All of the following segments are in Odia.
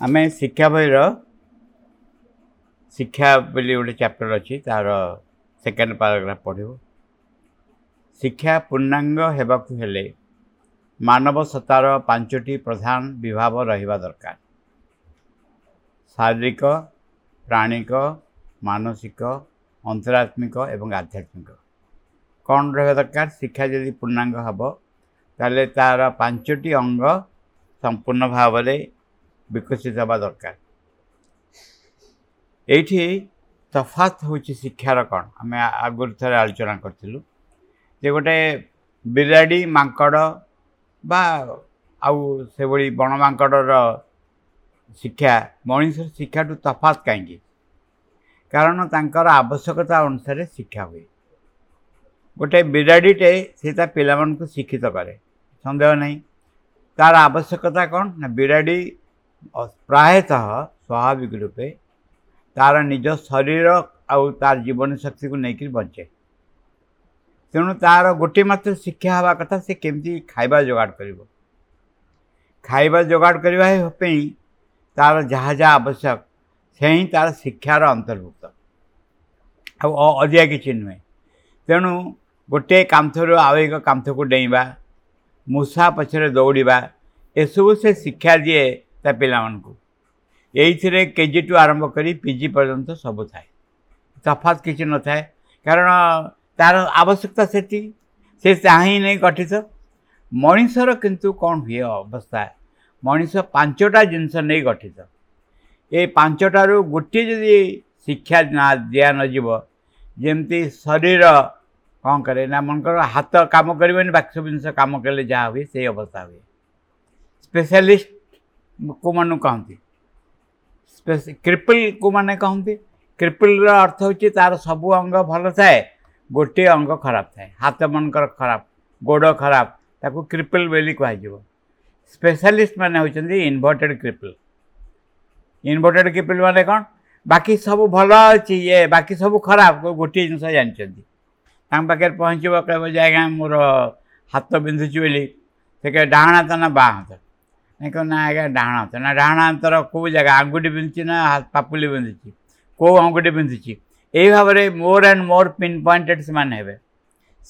ଆମେ ଶିକ୍ଷା ବହିର ଶିକ୍ଷା ବୋଲି ଗୋଟେ ଚାପ୍ଟର ଅଛି, ତାର ସେକେଣ୍ଡ ପାରାଗ୍ରାଫ ପଢ଼ିବୁ। ଶିକ୍ଷା ପୂର୍ଣ୍ଣାଙ୍ଗ ହେବାକୁ ହେଲେ ମାନବ ସତ୍ତାର 5ଟି ପ୍ରଧାନ ବିଭାବ ରହିବା ଦରକାର: ଶାରୀରିକ, ପ୍ରାଣିକ, ମାନସିକ, ଅନ୍ତରାତ୍ମିକ ଏବଂ ଆଧ୍ୟାତ୍ମିକ। କ'ଣ ରହିବା ଦରକାର? ଶିକ୍ଷା ଯଦି ପୂର୍ଣ୍ଣାଙ୍ଗ ହେବ ତାହେଲେ ତାର 5ଟି ଅଙ୍ଗ ସମ୍ପୂର୍ଣ୍ଣ ଭାବରେ ବିକଶିତ ହେବା ଦରକାର। ଏଇଠି ତଫାତ ହେଉଛି ଶିକ୍ଷାର କ'ଣ, ଆମେ ଆଗରୁ ଥରେ ଆଲୋଚନା କରିଥିଲୁ ଯେ ଗୋଟେ ବିରାଡ଼ି, ମାଙ୍କଡ଼ ବା ଆଉ ସେଭଳି ବଣ ମାଙ୍କଡ଼ର ଶିକ୍ଷା ମଣିଷର ଶିକ୍ଷାଠୁ ତଫାତ କାହିଁକି? କାରଣ ତାଙ୍କର ଆବଶ୍ୟକତା ଅନୁସାରେ ଶିକ୍ଷା ହୁଏ। ଗୋଟେ ବିରାଡ଼ିଟେ ସେ ତା ପିଲାମାନଙ୍କୁ ଶିକ୍ଷିତ କରେ, ସନ୍ଦେହ ନାହିଁ। ତାର ଆବଶ୍ୟକତା କ'ଣ ନା, ବିରାଡ଼ି ପ୍ରାୟତଃ ସ୍ୱାଭାବିକ ରୂପେ ତାର ନିଜ ଶରୀର ଆଉ ତାର ଜୀବନ ଶକ୍ତିକୁ ନେଇକରି ବଞ୍ଚେ। ତେଣୁ ତାର ଗୋଟିଏ ମାତ୍ର ଶିକ୍ଷା ହେବା କଥା, ସେ କେମିତି ଖାଇବା ଯୋଗାଡ଼ କରିବ। ଖାଇବା ଯୋଗାଡ଼ କରିବା ପାଇଁ ତାର ଯାହା ଯାହା ଆବଶ୍ୟକ ସେ ହିଁ ତାର ଶିକ୍ଷାର ଅନ୍ତର୍ଭୁକ୍ତ, ଆଉ ଅଧିକା କିଛି ନୁହେଁ। ତେଣୁ ଗୋଟିଏ କାନ୍ଥରୁ ଆଉ ଏକ କାନ୍ଥକୁ ଡେଇଁବା, ମୂଷା ପଛରେ ଦୌଡ଼ିବା, ଏସବୁ ସେ ଶିକ୍ଷା ଦିଏ ତା ପିଲାମାନଙ୍କୁ। ଏଇଥିରେ କେଜି ଟୁ ଆରମ୍ଭ କରି ପିଜି ପର୍ଯ୍ୟନ୍ତ ସବୁ ଥାଏ, ତଫାତ୍ କିଛି ନଥାଏ। କାରଣ ତାର ଆବଶ୍ୟକତା ସେତିକି, ସେ ଚାହିଁ ନେଇ ଗଠିତ। ମଣିଷର କିନ୍ତୁ କ'ଣ ହୁଏ ଅବସ୍ଥା, ମଣିଷ 5ଟା ଜିନିଷ ନେଇ ଗଠିତ। ଏ 5ଟାରୁ ଗୋଟିଏ ଯଦି ଶିକ୍ଷା ନା ଦିଆ ନଯିବ, ଯେମିତି ଶରୀର କ'ଣ କରେ ନା, ମନେକର ହାତ କାମ କରିବନି, ବାକି ସବୁ ଜିନିଷ କାମ କଲେ ଯାହା ହୁଏ ସେଇ ଅବସ୍ଥା ହୁଏ। ସ୍ପେଶାଲିଷ୍ଟ କେଉଁମାନଙ୍କୁ କହନ୍ତି? କ୍ରିପଲ୍ କେଉଁମାନେ କହନ୍ତି? କ୍ରିପଲ୍ର ଅର୍ଥ ହେଉଛି ତାର ସବୁ ଅଙ୍ଗ ଭଲ ଥାଏ, ଗୋଟିଏ ଅଙ୍ଗ ଖରାପ ଥାଏ। ହାତ ମନେକର ଖରାପ, ଗୋଡ଼ ଖରାପ, ତାକୁ କ୍ରିପଲ୍ ବୋଲି କୁହାଯିବ। ସ୍ପେଶାଲିଷ୍ଟ ମାନେ ହେଉଛନ୍ତି ଇନଭର୍ଟେଡ଼ କ୍ରିପଲ୍। ଇନଭର୍ଟେଡ଼ କ୍ରିପଲ୍ ମାନେ କ'ଣ? ବାକି ସବୁ ଭଲ ଅଛି, ଇଏ ବାକି ସବୁ ଖରାପ, ଗୋଟିଏ ଜିନିଷ ଜାଣିଛନ୍ତି। ତାଙ୍କ ପାଖରେ ପହଞ୍ଚିବ, କହିବ ଯେ ଆଜ୍ଞା ମୋର ହାତ ବିନ୍ଧୁଛି ବୋଲି। ସେ କହିବେ ଡାହାଣ ହାତ ନା ବାଁ ହାତ? ନାଇଁ, କହିବ ନା ଆଜ୍ଞା ଡାହାଣ ହାତ। ନା ଡାହାଣ ହାତର କେଉଁ ଜାଗା, ଆଙ୍ଗୁଠି ବିନ୍ଧୁଛି ନା ପାପୁଲି ବିନ୍ଧୁଛି, କେଉଁ ଆଙ୍ଗୁଠି ବିନ୍ଧୁଛି? ଏଇ ଭାବରେ more and more pin pointed ସେମାନେ ହେବେ।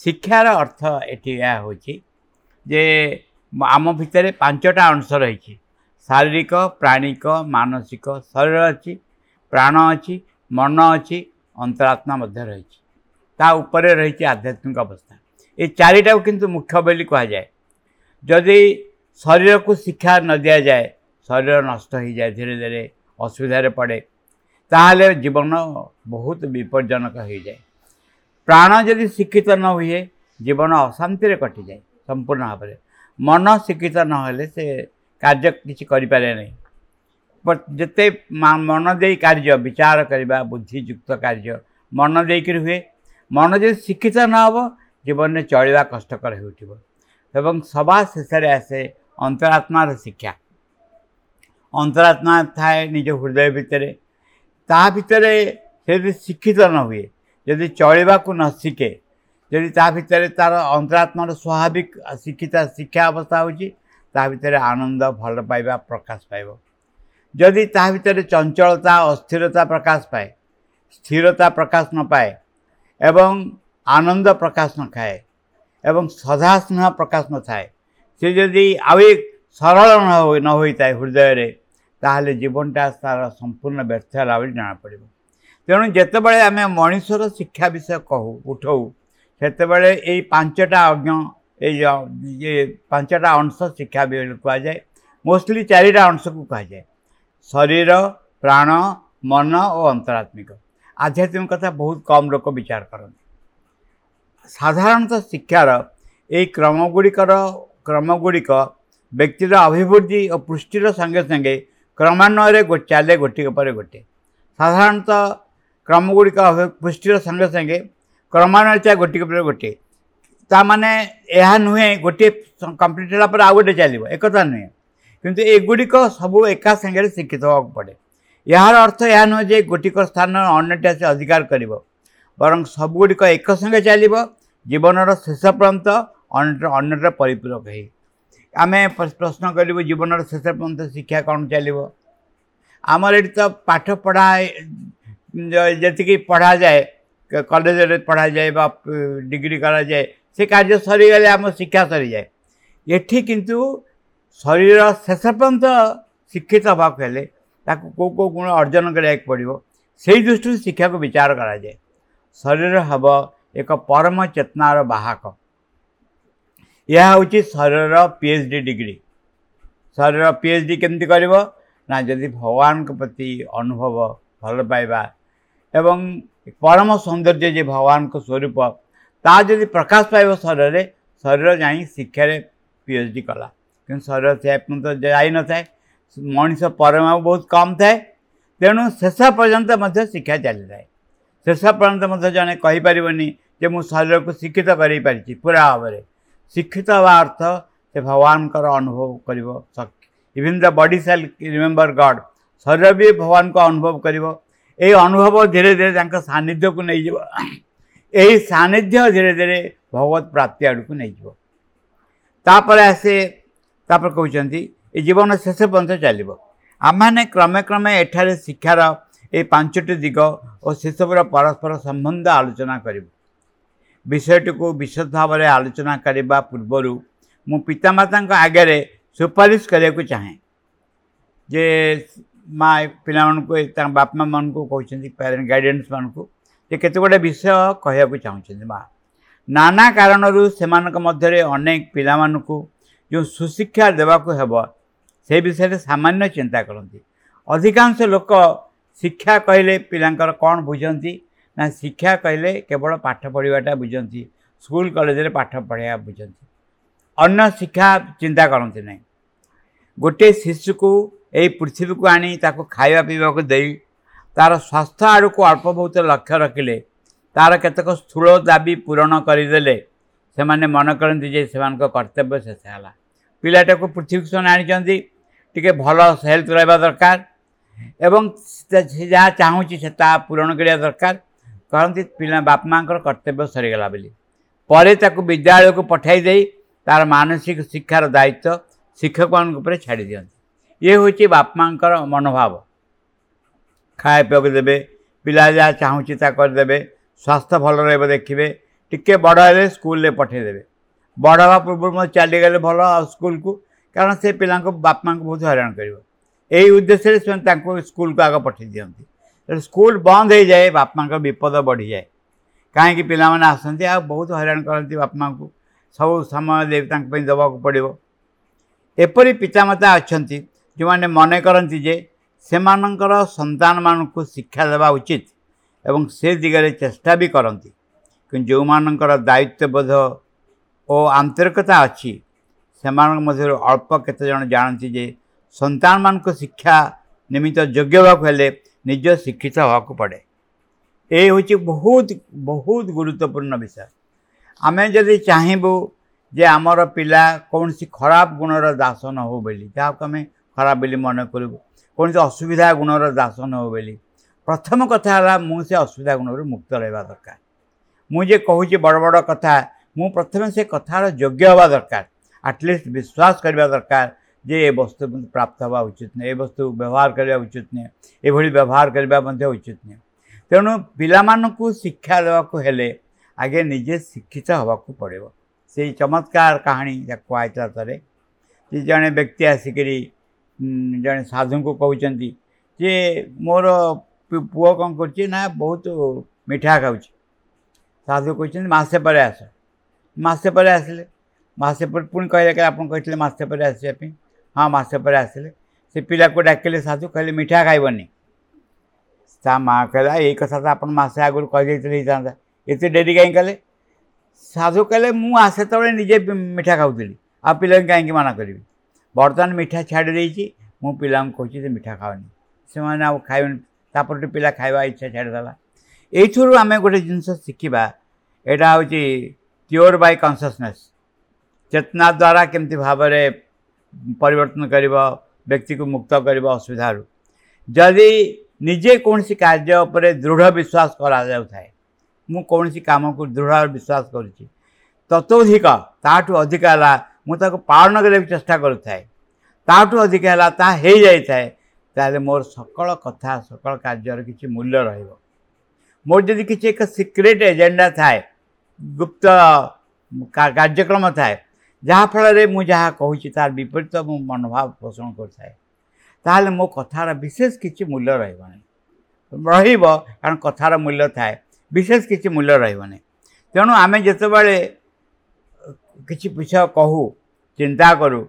ଶିକ୍ଷାର ଅର୍ଥ ଏଠି ଏହା ହେଉଛି ଯେ ଆମ ଭିତରେ 5ଟା ଅଂଶ ରହିଛି: ଶାରୀରିକ, ପ୍ରାଣିକ, ମାନସିକ। ଶରୀର ଅଛି, ପ୍ରାଣ ଅଛି, ମନ ଅଛି, ଅନ୍ତରାତ୍ମା ମଧ୍ୟ ରହିଛି। ତା ଉପରେ ରହିଛି ଆଧ୍ୟାତ୍ମିକ ଅବସ୍ଥା। ଏ 4ଟାକୁ କିନ୍ତୁ ମୁଖ୍ୟ ବୋଲି କୁହାଯାଏ। ଯଦି ଶରୀରକୁ ଶିକ୍ଷା ନ ଦିଆଯାଏ, ଶରୀର ନଷ୍ଟ ହୋଇଯାଏ, ଧୀରେ ଧୀରେ ଅସୁବିଧାରେ ପଡ଼େ, ତାହେଲେ ଜୀବନ ବହୁତ ବିପଜ୍ଜନକ ହୋଇଯାଏ। ପ୍ରାଣ ଯଦି ଶିକ୍ଷିତ ନ ହୁଏ, ଜୀବନ ଅଶାନ୍ତିରେ କଟିଯାଏ ସମ୍ପୂର୍ଣ୍ଣ ଭାବରେ। ମନ ଶିକ୍ଷିତ ନହେଲେ ସେ କାର୍ଯ୍ୟ କିଛି କରିପାରେ ନାହିଁ। ଯେତେ ମନ ଦେଇ କାର୍ଯ୍ୟ ବିଚାର କରିବା, ବୁଦ୍ଧିଯୁକ୍ତ କାର୍ଯ୍ୟ ମନ ଦେଇକରି ହୁଏ। ମନ ଯଦି ଶିକ୍ଷିତ ନ ହେବ, ଜୀବନରେ ଚଳିବା କଷ୍ଟକର ହେଉଥିବ। ଏବଂ ସବା ଶେଷରେ ଆସେ ଅନ୍ତରାତ୍ମାର ଶିକ୍ଷା। ଅନ୍ତରାତ୍ମା ଥାଏ ନିଜ ହୃଦୟ ଭିତରେ। ତା ଭିତରେ ସେ ଯଦି ଶିକ୍ଷିତ ନ ହୁଏ, ଯଦି ଚଳିବାକୁ ନ ଶିଖେ, ଯଦି ତା ଭିତରେ ତାର ଅନ୍ତରାତ୍ମାର ସ୍ୱାଭାବିକ ଶିକ୍ଷିତ ଶିକ୍ଷା ଅବସ୍ଥା ହେଉଛି, ତା ଭିତରେ ଆନନ୍ଦ, ଭଲ ପାଇବା ପ୍ରକାଶ ପାଇବ। ଯଦି ତା ଭିତରେ ଚଞ୍ଚଳତା, ଅସ୍ଥିରତା ପ୍ରକାଶ ପାଏ, ସ୍ଥିରତା ପ୍ରକାଶ ନ ପାଏ ଏବଂ ଆନନ୍ଦ ପ୍ରକାଶ ନ ଖାଏ ଏବଂ ସଦା ସ୍ନେହ ପ୍ରକାଶ ନଥାଏ, ସେ ଯଦି ଆଉ ସରଳ ନ ହୋଇଥାଏ ହୃଦୟରେ, ତାହେଲେ ଜୀବନଟା ତାର ସମ୍ପୂର୍ଣ୍ଣ ବ୍ୟର୍ଥ ହେଲା ବୋଲି ଜଣାପଡ଼ିବ। ତେଣୁ ଯେତେବେଳେ ଆମେ ମଣିଷର ଶିକ୍ଷା ବିଷୟ କହୁ ଉଠଉ, ସେତେବେଳେ ଏଇ 5ଟା ଅଜ୍ଞ, ଏଇ 5ଟା ଅଂଶ ଶିକ୍ଷା ବୋଲି କୁହାଯାଏ। ମୋଷ୍ଟଲି 4ଟା ଅଂଶକୁ କୁହାଯାଏ: ଶରୀର, ପ୍ରାଣ, ମନ ଓ ଅନ୍ତରାତ୍ମିକ। ଆଧ୍ୟାତ୍ମିକ କଥା ବହୁତ କମ୍ ଲୋକ ବିଚାର କରନ୍ତି। ସାଧାରଣତଃ ଶିକ୍ଷାର ଏଇ କ୍ରମଗୁଡ଼ିକ ବ୍ୟକ୍ତିର ଅଭିବୃଦ୍ଧି ଓ ପୁଷ୍ଟିର ସଙ୍ଗେ ସଙ୍ଗେ କ୍ରମାନ୍ୱୟରେ ଚାଲେ, ଗୋଟିକ ପରେ ଗୋଟିଏ। ସାଧାରଣତଃ କ୍ରମଗୁଡ଼ିକ ପୁଷ୍ଟିର ସଙ୍ଗେ ସଙ୍ଗେ କ୍ରମାନ୍ୱୟରେ ଚାଲେ ଗୋଟିକ ପରେ ଗୋଟିଏ। ତା ମାନେ ଏହା ନୁହେଁ ଗୋଟିଏ କମ୍ପ୍ଲିଟ୍ ହେଲା ପରେ ଆଉ ଗୋଟେ ଚାଲିବ, ଏକଥା ନୁହେଁ। କିନ୍ତୁ ଏଗୁଡ଼ିକ ସବୁ ଏକା ସାଙ୍ଗରେ ଶିକ୍ଷିତ ହେବାକୁ ପଡ଼େ। ଏହାର ଅର୍ଥ ଏହା ନୁହେଁ ଯେ ଗୋଟିକ ସ୍ଥାନ ଅନ୍ୟଟି ଆସି ଅଧିକାର କରିବ, ବରଂ ସବୁଗୁଡ଼ିକ ଏକ ସଙ୍ଗେ ଚାଲିବ ଜୀବନର ଶେଷ ପର୍ଯ୍ୟନ୍ତ, ଅନ୍ୟର ପରିପୂରକ ହେଇ। ଆମେ ପ୍ରଶ୍ନ କରିବୁ, ଜୀବନର ଶେଷ ପର୍ଯ୍ୟନ୍ତ ଶିକ୍ଷା କ'ଣ ଚାଲିବ? ଆମର ଏଠି ତ ପାଠ ପଢ଼ା ଯେତିକି ପଢ଼ାଯାଏ, କଲେଜରେ ପଢ଼ାଯାଏ ବା ଡିଗ୍ରୀ କରାଯାଏ, ସେ କାର୍ଯ୍ୟ ସରିଗଲେ ଆମ ଶିକ୍ଷା ସରିଯାଏ। ଏଠି କିନ୍ତୁ ଶରୀର ଶେଷ ପର୍ଯ୍ୟନ୍ତ ଶିକ୍ଷିତ ହେବାକୁ ହେଲେ ତାକୁ କେଉଁ କେଉଁ ଗୁଣ ଅର୍ଜନ କରିବାକୁ ପଡ଼ିବ, ସେଇ ଦୃଷ୍ଟିରୁ ଶିକ୍ଷାକୁ ବିଚାର କରାଯାଏ। ଶରୀର ହେବ ଏକ ପରମ ଚେତନାର ବାହକ। ଏହା ହେଉଛି ଶରୀରର PhD degree. ଶରୀର PhD କେମିତି କରିବ ନା, ଯଦି ଭଗବାନଙ୍କ ପ୍ରତି ଅନୁଭବ, ଭଲ ପାଇବା ଏବଂ ପରମ ସୌନ୍ଦର୍ଯ୍ୟ ଯେ ଭଗବାନଙ୍କ ସ୍ୱରୂପ, ତା ଯଦି ପ୍ରକାଶ ପାଇବ ଶରୀରରେ, ଶରୀର ଯାଇ ଶିକ୍ଷାରେ PhD କଲା। କିନ୍ତୁ ଶରୀର ସେ ପର୍ଯ୍ୟନ୍ତ ଯାଇନଥାଏ, ମଣିଷ ପରମାୟୁ ବହୁତ କମ୍ ଥାଏ। ତେଣୁ ଶେଷ ପର୍ଯ୍ୟନ୍ତ ମଧ୍ୟ ଶିକ୍ଷା ଚାଲିଥାଏ। ଶେଷ ପର୍ଯ୍ୟନ୍ତ ମଧ୍ୟ ଜଣେ କହିପାରିବନି ଯେ ମୁଁ ଶରୀରକୁ ଶିକ୍ଷିତ କରେଇ ପାରିଛି ପୁରା ଭାବରେ। ଶିକ୍ଷିତ ହେବା ଅର୍ଥ ସେ ଭଗବାନଙ୍କର ଅନୁଭବ କରିବ। Even the body shall remember God. ଶରୀର ବି ଭଗବାନଙ୍କୁ ଅନୁଭବ କରିବ। ଏହି ଅନୁଭବ ଧୀରେ ଧୀରେ ତାଙ୍କ ସାନ୍ନିଧ୍ୟକୁ ନେଇଯିବ। ଏହି ସାନ୍ନିଧ୍ୟ ଧୀରେ ଧୀରେ ଭଗବତ ପ୍ରାପ୍ତି ଆଡ଼କୁ ନେଇଯିବ। ତାପରେ ଆସେ, ତାପରେ କହୁଛନ୍ତି ଏ ଜୀବନ ଶେଷ ପର୍ଯ୍ୟନ୍ତ ଚାଲିବ। ଆମେମାନେ କ୍ରମେ କ୍ରମେ ଏଠାରେ ଶିକ୍ଷାର ଏଇ 5ଟି ଦିଗ ଓ ସେସବୁର ପରସ୍ପର ସମ୍ବନ୍ଧ ଆଲୋଚନା କରିବୁ। ବିଷୟଟିକୁ ବିଶଦ ଭାବରେ ଆଲୋଚନା କରିବା ପୂର୍ବରୁ ମୁଁ ପିତାମାତାଙ୍କ ଆଗରେ ସୁପାରିଶ କରିବାକୁ ଚାହେଁ ଯେ ମା ପିଲାମାନଙ୍କୁ, ତାଙ୍କ ବାପା ମାଆମାନଙ୍କୁ କହୁଛନ୍ତି, ପ୍ୟାରେଣ୍ଟ ଗାଇଡେନ୍ସମାନଙ୍କୁ ଯେ କେତେ ଗୁଡ଼ିଏ ବିଷୟ କହିବାକୁ ଚାହୁଁଛନ୍ତି ମା। ନାନା କାରଣରୁ ସେମାନଙ୍କ ମଧ୍ୟରେ ଅନେକ ପିଲାମାନଙ୍କୁ ଯେଉଁ ସୁଶିକ୍ଷା ଦେବାକୁ ହେବ ସେ ବିଷୟରେ ସାମାନ୍ୟ ଚିନ୍ତା କରନ୍ତି। ଅଧିକାଂଶ ଲୋକ ଶିକ୍ଷା କହିଲେ ପିଲାଙ୍କର କ'ଣ ବୁଝନ୍ତି ନା, ଶିକ୍ଷା କହିଲେ କେବଳ ପାଠ ପଢ଼ିବାଟା ବୁଝନ୍ତି, ସ୍କୁଲ କଲେଜରେ ପାଠ ପଢ଼ିବା ବୁଝନ୍ତି, ଅନ୍ୟ ଶିକ୍ଷା ଚିନ୍ତା କରନ୍ତି ନାହିଁ। ଗୋଟିଏ ଶିଶୁକୁ ଏଇ ପୃଥିବୀକୁ ଆଣି ତାକୁ ଖାଇବା ପିଇବାକୁ ଦେଇ ତା'ର ସ୍ୱାସ୍ଥ୍ୟ ଆଡ଼କୁ ଅଳ୍ପ ବହୁତ ଲକ୍ଷ୍ୟ ରଖିଲେ, ତା'ର କେତେକ ସ୍ଥୂଳ ଦାବି ପୂରଣ କରିଦେଲେ ସେମାନେ ମନେ କରନ୍ତି ଯେ ସେମାନଙ୍କ କର୍ତ୍ତବ୍ୟ ଶେଷ ହେଲା। ପିଲାଟାକୁ ପୃଥିବୀକୁ ସେମାନେ ଆଣିଛନ୍ତି, ଟିକେ ଭଲ ହେଲ୍ଥ ରହିବା ଦରକାର ଏବଂ ସେ ଯାହା ଚାହୁଁଛି ସେ ତାହା ପୂରଣ କରିବା ଦରକାର। କହନ୍ତି ପିଲା ବାପା ମାଆଙ୍କର କର୍ତ୍ତବ୍ୟ ସରିଗଲା ବୋଲି। ପରେ ତାକୁ ବିଦ୍ୟାଳୟକୁ ପଠାଇ ଦେଇ ତା'ର ମାନସିକ ଶିକ୍ଷାର ଦାୟିତ୍ୱ ଶିକ୍ଷକମାନଙ୍କ ଉପରେ ଛାଡ଼ି ଦିଅନ୍ତି। ଇଏ ହେଉଛି ବାପା ମାଆଙ୍କର ମନୋଭାବ। ଖାଇବା ପିଇବାକୁ ଦେବେ, ପିଲା ଯାହା ଚାହୁଁଛି ତା କରିଦେବେ, ସ୍ୱାସ୍ଥ୍ୟ ଭଲ ରହିବ ଦେଖିବେ, ଟିକେ ବଡ଼ ହେଲେ ସ୍କୁଲରେ ପଠାଇଦେବେ। ବଡ଼ ହେବା ପୂର୍ବରୁ ମଧ୍ୟ ଚାଲିଗଲେ ଭଲ ଆଉ ସ୍କୁଲକୁ, କାରଣ ସେ ପିଲାଙ୍କୁ ବାପା ମାଆଙ୍କୁ ବହୁତ ହଇରାଣ କରିବ। ଏଇ ଉଦ୍ଦେଶ୍ୟରେ ସେମାନେ ତାଙ୍କୁ ସ୍କୁଲକୁ ଆଗ ପଠାଇ ଦିଅନ୍ତି। ତେଣୁ ସ୍କୁଲ ବନ୍ଦ ହେଇଯାଏ, ବାପା ମାଆଙ୍କର ବିପଦ ବଢ଼ିଯାଏ। କାହିଁକି ପିଲାମାନେ ଆସନ୍ତି ଆଉ ବହୁତ ହଇରାଣ କରନ୍ତି ବାପା ମାଆଙ୍କୁ, ସବୁ ସମୟ ଦେଇ ତାଙ୍କ ପାଇଁ ଦେବାକୁ ପଡ଼ିବ। ଏପରି ପିତାମାତା ଅଛନ୍ତି ଯେଉଁମାନେ ମନେ କରନ୍ତି ଯେ ସେମାନଙ୍କର ସନ୍ତାନମାନଙ୍କୁ ଶିକ୍ଷା ଦେବା ଉଚିତ ଏବଂ ସେ ଦିଗରେ ଚେଷ୍ଟା ବି କରନ୍ତି। କିନ୍ତୁ ଯେଉଁମାନଙ୍କର ଦାୟିତ୍ୱବୋଧ ଓ ଆନ୍ତରିକତା ଅଛି, ସେମାନଙ୍କ ମଧ୍ୟରୁ ଅଳ୍ପ କେତେଜଣ ଜାଣନ୍ତି ଯେ ସନ୍ତାନମାନଙ୍କୁ ଶିକ୍ଷା ନିମିତ୍ତ ଯୋଗ୍ୟ ହେବାକୁ ହେଲେ ନିଜ ଶିକ୍ଷିତ ହେବାକୁ ପଡ଼େ। ଏ ହେଉଛି ବହୁତ ବହୁତ ଗୁରୁତ୍ୱପୂର୍ଣ୍ଣ ବିଷୟ। ଆମେ ଯଦି ଚାହିଁବୁ ଯେ ଆମର ପିଲା କୌଣସି ଖରାପ ଗୁଣର ଦାସ ନ ହେଉ ବୋଲି, ଯାହାକୁ ଆମେ ଖରାପ ବୋଲି ମନେ କରିବୁ, କୌଣସି ଅସୁବିଧା ଗୁଣର ଦାସ ନ ହେଉ ବୋଲି, ପ୍ରଥମ କଥା ହେଲା ମୁଁ ସେ ଅସୁବିଧା ଗୁଣରୁ ମୁକ୍ତ ରହିବା ଦରକାର। ମୁଁ ଯେ କହୁଛି ବଡ଼ ବଡ଼ କଥା, ମୁଁ ପ୍ରଥମେ ସେ କଥାର ଯୋଗ୍ୟ ହେବା ଦରକାର। ଆଟଲିଷ୍ଟ ବିଶ୍ୱାସ କରିବା ଦରକାର ଯେ ଏ ବସ୍ତୁ ପ୍ରାପ୍ତ ହେବା ଉଚିତ ନୁହେଁ, ଏ ବସ୍ତୁ ବ୍ୟବହାର କରିବା ଉଚିତ ନୁହେଁ, ଏଭଳି ବ୍ୟବହାର କରିବା ମଧ୍ୟ ଉଚିତ ନୁହେଁ। ତେଣୁ ପିଲାମାନଙ୍କୁ ଶିକ୍ଷା ଦେବାକୁ ହେଲେ ଆଗେ ନିଜେ ଶିକ୍ଷିତ ହେବାକୁ ପଡ଼ିବ। ସେଇ ଚମତ୍କାର କାହାଣୀ ଯାହା କୁହାହେଇଥିଲା ଥରେ ଯେ ଜଣେ ବ୍ୟକ୍ତି ଆସିକରି ଜଣେ ସାଧୁଙ୍କୁ କହୁଛନ୍ତି ଯେ ମୋର ପୁଅ କ'ଣ କରୁଛି ନା ବହୁତ ମିଠା ଖାଉଛି। ସାଧୁ କହୁଛନ୍ତି ମାସେ ପରେ ଆସ। ମାସେ ପରେ ଆସିଲେ। ମାସେ ପରେ ପୁଣି କହିଲେ କି ଆପଣ କହିଥିଲେ ମାସେ ପରେ ଆସିବା ପାଇଁ। ହଁ, ମାସେ ପରେ ଆସିଲେ। ସେ ପିଲାକୁ ଡାକିଲେ ସାଧୁ, କହିଲେ ମିଠା ଖାଇବନି। ତା ମା' କହିଲା ଏଇ କଥା ତ ଆପଣ ମାସେ ଆଗରୁ କହିଦେଇଥିଲେ ହେଇଥାନ୍ତା, ଏତେ ଡେରି କାହିଁ କଲେ? ସାଧୁ କହିଲେ ମୁଁ ସେତେବେଳେ ନିଜେ ମିଠା ଖାଉଥିଲି, ଆଉ ପିଲାଙ୍କୁ କାହିଁକି ମନା କରିବି? ବର୍ତ୍ତମାନ ମିଠା ଛାଡ଼ି ଦେଇଛି, ମୁଁ ପିଲାଙ୍କୁ କହୁଛି ଯେ ମିଠା ଖାଅନି, ସେମାନେ ଆଉ ଖାଇବେନି। ତାପରଠୁ ପିଲା ଖାଇବା ଇଚ୍ଛା ଛାଡ଼ିଦେଲା। ଏଇଥିରୁ ଆମେ ଗୋଟେ ଜିନିଷ ଶିଖିବା, ଏଇଟା ହେଉଛି କ୍ୟୁର୍ ବାଇ କନସିୟସନେସ୍। ଚେତନା ଦ୍ୱାରା କେମିତି ଭାବରେ ପରିବର୍ତ୍ତନ କରିବ, ବ୍ୟକ୍ତିକୁ ମୁକ୍ତ କରିବ ଅସୁବିଧାରୁ। ଯଦି ନିଜେ କୌଣସି କାର୍ଯ୍ୟ ଉପରେ ଦୃଢ଼ ବିଶ୍ୱାସ କରାଯାଉଥାଏ, ମୁଁ କୌଣସି କାମକୁ ଦୃଢ଼ ବିଶ୍ୱାସ କରୁଛି, ତତୋଧିକ ତାଠୁ ଅଧିକ ହେଲା ମୁଁ ତାକୁ ପାଳନ କରିବାକୁ ଚେଷ୍ଟା କରୁଥାଏ, ତାଠୁ ଅଧିକ ହେଲା ତାହା ହେଇଯାଇଥାଏ, ତାହେଲେ ମୋର ସକଳ କଥା, ସକଳ କାର୍ଯ୍ୟର କିଛି ମୂଲ୍ୟ ରହିବ। ମୋର ଯଦି କିଛି ଏକ ସିକ୍ରେଟ୍ ଏଜେଣ୍ଡା ଥାଏ, ଗୁପ୍ତ କାର୍ଯ୍ୟକ୍ରମ ଥାଏ, ଯାହାଫଳରେ ମୁଁ ଯାହା କହୁଛି ତାର ବିପରୀତ ମୁଁ ମନୋଭାବ ପୋଷଣ କରୁଥାଏ, ତାହେଲେ ମୋ କଥାର ବିଶେଷ କିଛି ମୂଲ୍ୟ ରହିବ ନାହିଁ। ରହିବ, କାରଣ କଥାର ମୂଲ୍ୟ ଥାଏ, ବିଶେଷ କିଛି ମୂଲ୍ୟ ରହିବ ନାହିଁ। ତେଣୁ ଆମେ ଯେତେବେଳେ କିଛି ବିଷୟ କହୁ, ଚିନ୍ତା କରୁ,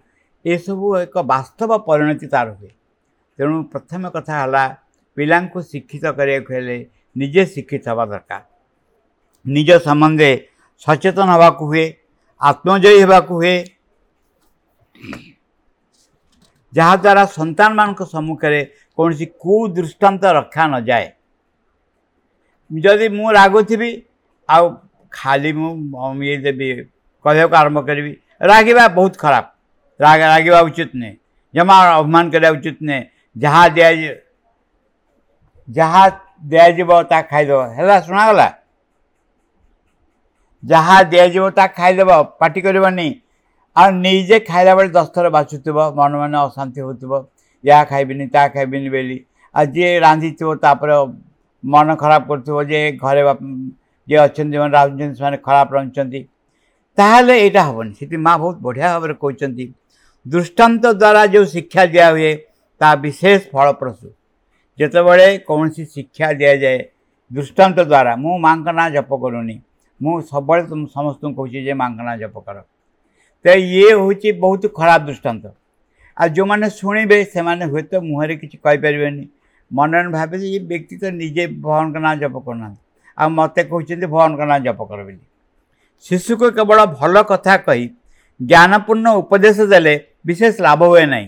ଏସବୁ ଏକ ବାସ୍ତବ ପରିଣତି ତାର ହୁଏ। ତେଣୁ ପ୍ରଥମ କଥା ହେଲା, ପିଲାଙ୍କୁ ଶିକ୍ଷିତ କରିବାକୁ ହେଲେ ନିଜେ ଶିକ୍ଷିତ ହେବା ଦରକାର। ନିଜ ସମ୍ବନ୍ଧେ ସଚେତନ ହେବାକୁ ହୁଏ, ଆତ୍ମଜୟୀ ହେବାକୁ ହୁଏ, ଯାହାଦ୍ୱାରା ସନ୍ତାନମାନଙ୍କ ସମ୍ମୁଖରେ କୌଣସି କୁଦୃଷ୍ଟାନ୍ତ ରଖା ନଯାଏ। ଯଦି ମୁଁ ରାଗୁଥିବି ଆଉ ଖାଲି ମୁଁ ଇଏ ଦେବି, କହିବାକୁ ଆରମ୍ଭ କରିବି, ରାଗିବା ବହୁତ ଖରାପ, ରାଗିବା ଉଚିତ ନୁହେଁ, ଜମା ଅଭିମାନ କରିବା ଉଚିତ ନୁହେଁ, ଯାହା ଦିଆଯିବ ତା ଖାଇଦେବ। ହେଲା, ଶୁଣାଗଲା? ଯାହା ଦିଆଯିବ ତା ଖାଇଦେବ, ପାଟି କରିବନି। ଆଉ ନିଜେ ଖାଇଲା ବେଳେ 10 ଥର ବାଛୁଥିବ, ମନେ ମନେ ଅଶାନ୍ତି ହେଉଥିବ, ୟା ଖାଇବିନି ତା ଖାଇବିନି ବୋଲି। ଆଉ ଯିଏ ରାନ୍ଧିଥିବ ତାପରେ ମନ ଖରାପ କରୁଥିବ ଯେ ଘରେ ଯିଏ ଅଛନ୍ତି, ଯେଉଁମାନେ ରାନ୍ଧୁଛନ୍ତି ସେମାନେ ଖରାପ ରାନ୍ଧୁଛନ୍ତି, ତାହେଲେ ଏଇଟା ହେବନି। ସେଠି ମା ବହୁତ ବଢ଼ିଆ ଭାବରେ କହୁଛନ୍ତି, ଦୃଷ୍ଟାନ୍ତ ଦ୍ୱାରା ଯେଉଁ ଶିକ୍ଷା ଦିଆହୁଏ ତାହା ବିଶେଷ ଫଳପ୍ରସୂ। ଯେତେବେଳେ କୌଣସି ଶିକ୍ଷା ଦିଆଯାଏ ଦୃଷ୍ଟାନ୍ତ ଦ୍ୱାରା, ମୁଁ ମାଙ୍କ ନାଁ ଜପ କରୁନି, ମୁଁ ସବୁବେଳେ ସମସ୍ତଙ୍କୁ କହୁଛି ଯେ ମାଙ୍କ ନାଁ ଜପ କର, ତ ଇଏ ହେଉଛି ବହୁତ ଖରାପ ଦୃଷ୍ଟାନ୍ତ। ଆଉ ଯେଉଁମାନେ ଶୁଣିବେ ସେମାନେ ହୁଏତ ମୁହଁରେ କିଛି କହିପାରିବେନି, ମନରେ ଭାବେ ଯେ ଇଏ ବ୍ୟକ୍ତି ତ ନିଜେ ଭଗବାନଙ୍କ ନାଁ ଜପ କରୁନାହାନ୍ତି, ଆଉ ମୋତେ କହୁଛନ୍ତି ଭଗବାନଙ୍କ ନାଁ ଜପ କର ବୋଲି। ଶିଶୁକୁ କେବଳ ଭଲ କଥା କହି ଜ୍ଞାନପୂର୍ଣ୍ଣ ଉପଦେଶ ଦେଲେ ବିଶେଷ ଲାଭ ହୁଏ ନାହିଁ,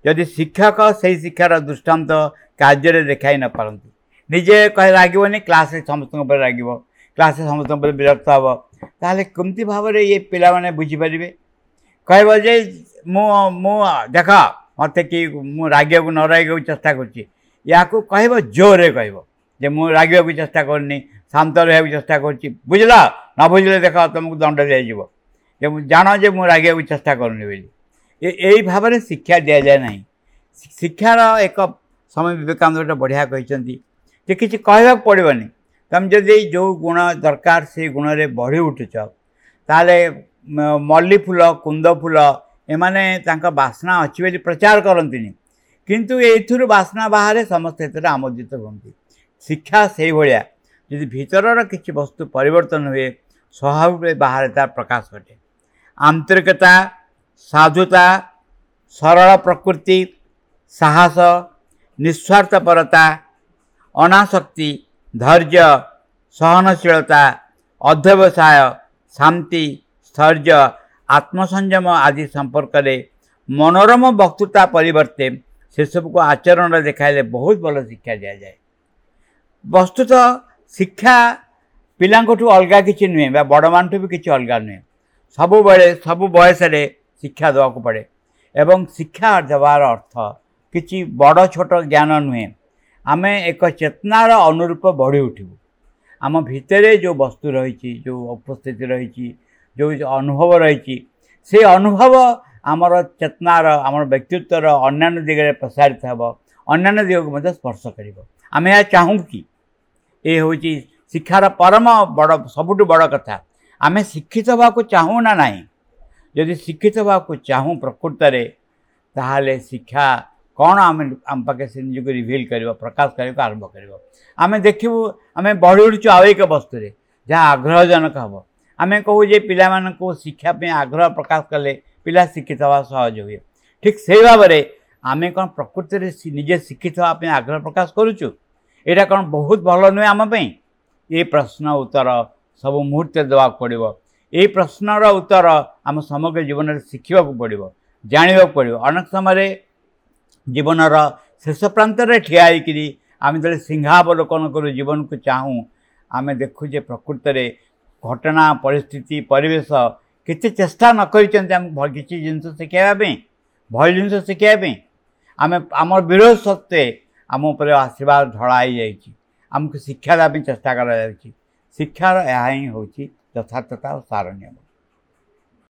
ଯଦି ଶିକ୍ଷକ ସେଇ ଶିକ୍ଷାର ଦୃଷ୍ଟାନ୍ତ କାର୍ଯ୍ୟରେ ଦେଖାଇ ନପାରନ୍ତି। ନିଜେ କହି ରାଗିବନି, କ୍ଲାସ୍ରେ ସମସ୍ତଙ୍କ ଉପରେ ରାଗିବ, କ୍ଲାସ୍ରେ ସମସ୍ତଙ୍କ ଉପରେ ବିରକ୍ତ ହେବ, ତାହେଲେ କେମିତି ଭାବରେ ଇଏ ପିଲାମାନେ ବୁଝିପାରିବେ? କହିବ ଯେ ମୁଁ ଦେଖ ମୋତେ କି ମୁଁ ରାଗିବାକୁ ନ ରାଗିବାକୁ ଚେଷ୍ଟା କରୁଛି, ୟାକୁ କହିବ ଜୋରରେ କହିବ ଯେ ମୁଁ ରାଗିବାକୁ ଚେଷ୍ଟା କରୁନି, ଶାନ୍ତ ରହିବାକୁ ଚେଷ୍ଟା କରୁଛି, ବୁଝିଲ? ନ ବୁଝିଲେ ଦେଖ ତୁମକୁ ଦଣ୍ଡ ଦିଆଯିବ, ଯେ ମୁଁ ଜାଣ ଯେ ମୁଁ ରାଗିବାକୁ ଚେଷ୍ଟା କରୁନି ବୋଲି। ଏଇ ଭାବରେ ଶିକ୍ଷା ଦିଆଯାଏ ନାହିଁ। ଶିକ୍ଷାର ଏକ ସ୍ୱାମୀ ବିବେକାନନ୍ଦ ଗୋଟେ ବଢ଼ିଆ କହିଛନ୍ତି ଯେ କିଛି କହିବାକୁ ପଡ଼ିବନି, ତୁମେ ଯଦି ଯେଉଁ ଗୁଣ ଦରକାର ସେଇ ଗୁଣରେ ବଢ଼ି ଉଠୁଛ, ତାହେଲେ ମଲ୍ଲି ଫୁଲ, କୁନ୍ଦ ଫୁଲ ଏମାନେ ତାଙ୍କ ବାସ୍ନା ଅଛି ବୋଲି ପ୍ରଚାର କରନ୍ତିନି, କିନ୍ତୁ ଏଇଥିରୁ ବାସ୍ନା ବାହାରେ, ସମସ୍ତେ ଏଥିରେ ଆମୋଦିତ ହୁଅନ୍ତି। ଶିକ୍ଷା ସେଇଭଳିଆ, ଯଦି ଭିତରର କିଛି ବସ୍ତୁ ପରିବର୍ତ୍ତନ ହୁଏ, ସ୍ୱଭାବ ବାହାରେ ତାର ପ୍ରକାଶ ଘଟେ। ଆନ୍ତରିକତା, ସାଧୁତା, ସରଳ ପ୍ରକୃତି, ସାହସ, ନିସ୍ୱାର୍ଥପରତା, ଅନାସକ୍ତି, ଧୈର୍ଯ୍ୟ, ସହନଶୀଳତା, ଅଧ୍ୟବସାୟ, ଶାନ୍ତି, ସ୍ଥୈର୍ଯ୍ୟ, ଆତ୍ମସଂଯମ ଆଦି ସମ୍ପର୍କରେ ମନୋରମ ବକ୍ତୃତା ପରିବର୍ତ୍ତେ ସେସବୁକୁ ଆଚରଣରେ ଦେଖାଇଲେ ବହୁତ ଭଲ ଶିକ୍ଷା ଦିଆଯାଏ। ବସ୍ତୁତଃ ଶିକ୍ଷା ପିଲାଙ୍କଠୁ ଅଲଗା କିଛି ନୁହେଁ ବା ବଡ଼ମାନଠୁ ବି କିଛି ଅଲଗା ନୁହେଁ। ସବୁବେଳେ ସବୁ ବୟସରେ ଶିକ୍ଷା ଦେବାକୁ ପଡ଼େ, ଏବଂ ଶିକ୍ଷା ଦେବାର ଅର୍ଥ କିଛି ବଡ଼ ଛୋଟ ଜ୍ଞାନ ନୁହେଁ। ଆମେ ଏକ ଚେତନାର ଅନୁରୂପ ବଢ଼ି ଉଠିବୁ। ଆମ ଭିତରେ ଯେଉଁ ବସ୍ତୁ ରହିଛି, ଯେଉଁ ଉପସ୍ଥିତି ରହିଛି, ଯେଉଁ ଅନୁଭବ ରହିଛି, ସେ ଅନୁଭବ ଆମର ଚେତନାର, ଆମର ବ୍ୟକ୍ତିତ୍ୱର ଅନ୍ୟାନ୍ୟ ଦିଗରେ ପ୍ରସାରିତ ହେବ, ଅନ୍ୟାନ୍ୟ ଦିଗକୁ ମଧ୍ୟ ସ୍ପର୍ଶ କରିବ। ଆମେ ଏହା ଚାହୁଁ କି? ଏ ହେଉଛି ଶିକ୍ଷାର ପରମ ବଡ଼, ସବୁଠୁ ବଡ଼ କଥା। ଆମେ ଶିକ୍ଷିତ ହେବାକୁ ଚାହୁଁ ନା ନାହିଁ? ଯଦି ଶିକ୍ଷିତ ହେବାକୁ ଚାହୁଁ ପ୍ରକୃତରେ, ତାହେଲେ ଶିକ୍ଷା କ'ଣ ଆମେ ଆମ ପାଖେ ସେ ନିଜକୁ ରିଭିଲ୍ କରିବ, ପ୍ରକାଶ କରିବାକୁ ଆରମ୍ଭ କରିବ। ଆମେ ଦେଖିବୁ ଆମେ ବଢ଼ି ଉଠୁଛୁ ଆଉ ଏକ ବସ୍ତୁରେ ଯାହା ଆଗ୍ରହଜନକ ହେବ। ଆମେ କହୁ ଯେ ପିଲାମାନଙ୍କୁ ଶିକ୍ଷା ପାଇଁ ଆଗ୍ରହ ପ୍ରକାଶ କଲେ ପିଲା ଶିକ୍ଷିତ ହେବା ସହଜ ହୁଏ। ଠିକ୍ ସେଇ ଭାବରେ ଆମେ କ'ଣ ପ୍ରକୃତିରେ ନିଜେ ଶିକ୍ଷିତ ହେବା ପାଇଁ ଆଗ୍ରହ ପ୍ରକାଶ କରୁଛୁ? ଏଇଟା କ'ଣ ବହୁତ ଭଲ ନୁହେଁ ଆମ ପାଇଁ? ଏ ପ୍ରଶ୍ନ ଉତ୍ତର ସବୁ ମୁହୂର୍ତ୍ତରେ ଦେବାକୁ ପଡ଼ିବ। ଏଇ ପ୍ରଶ୍ନର ଉତ୍ତର ଆମ ସମଗ୍ର ଜୀବନରେ ଶିଖିବାକୁ ପଡ଼ିବ, ଜାଣିବାକୁ ପଡ଼ିବ। ଅନେକ ସମୟରେ ଜୀବନର ଶେଷ ପ୍ରାନ୍ତରେ ଠିଆ ହେଇକିରି ଆମେ ଯେତେବେଳେ ସିଂହାବଲୋକନ କରୁ, ଜୀବନକୁ ଚାହୁଁ, ଆମେ ଦେଖୁ ଯେ ପ୍ରକୃତରେ ଘଟଣା, ପରିସ୍ଥିତି, ପରିବେଶ କେତେ ଚେଷ୍ଟା ନ କରିଛନ୍ତି ଆମକୁ କିଛି ଜିନିଷ ଶିଖାଇବା ପାଇଁ, ଭଲ ଜିନିଷ ଶିଖାଇବା ପାଇଁ। ଆମେ ଆମର ବିରୋଧ ସତ୍ତ୍ୱେ ଆମ ଉପରେ ଆଶୀର୍ବାଦ ଢଳା ହେଇଯାଇଛି, ଆମକୁ ଶିକ୍ଷା ଦେବା ପାଇଁ ଚେଷ୍ଟା କରାଯାଉଛି। ଶିକ୍ଷାର ଏହା ହିଁ ହେଉଛି ଯଥାର୍ଥତା ଓ ସାର ନିୟମ।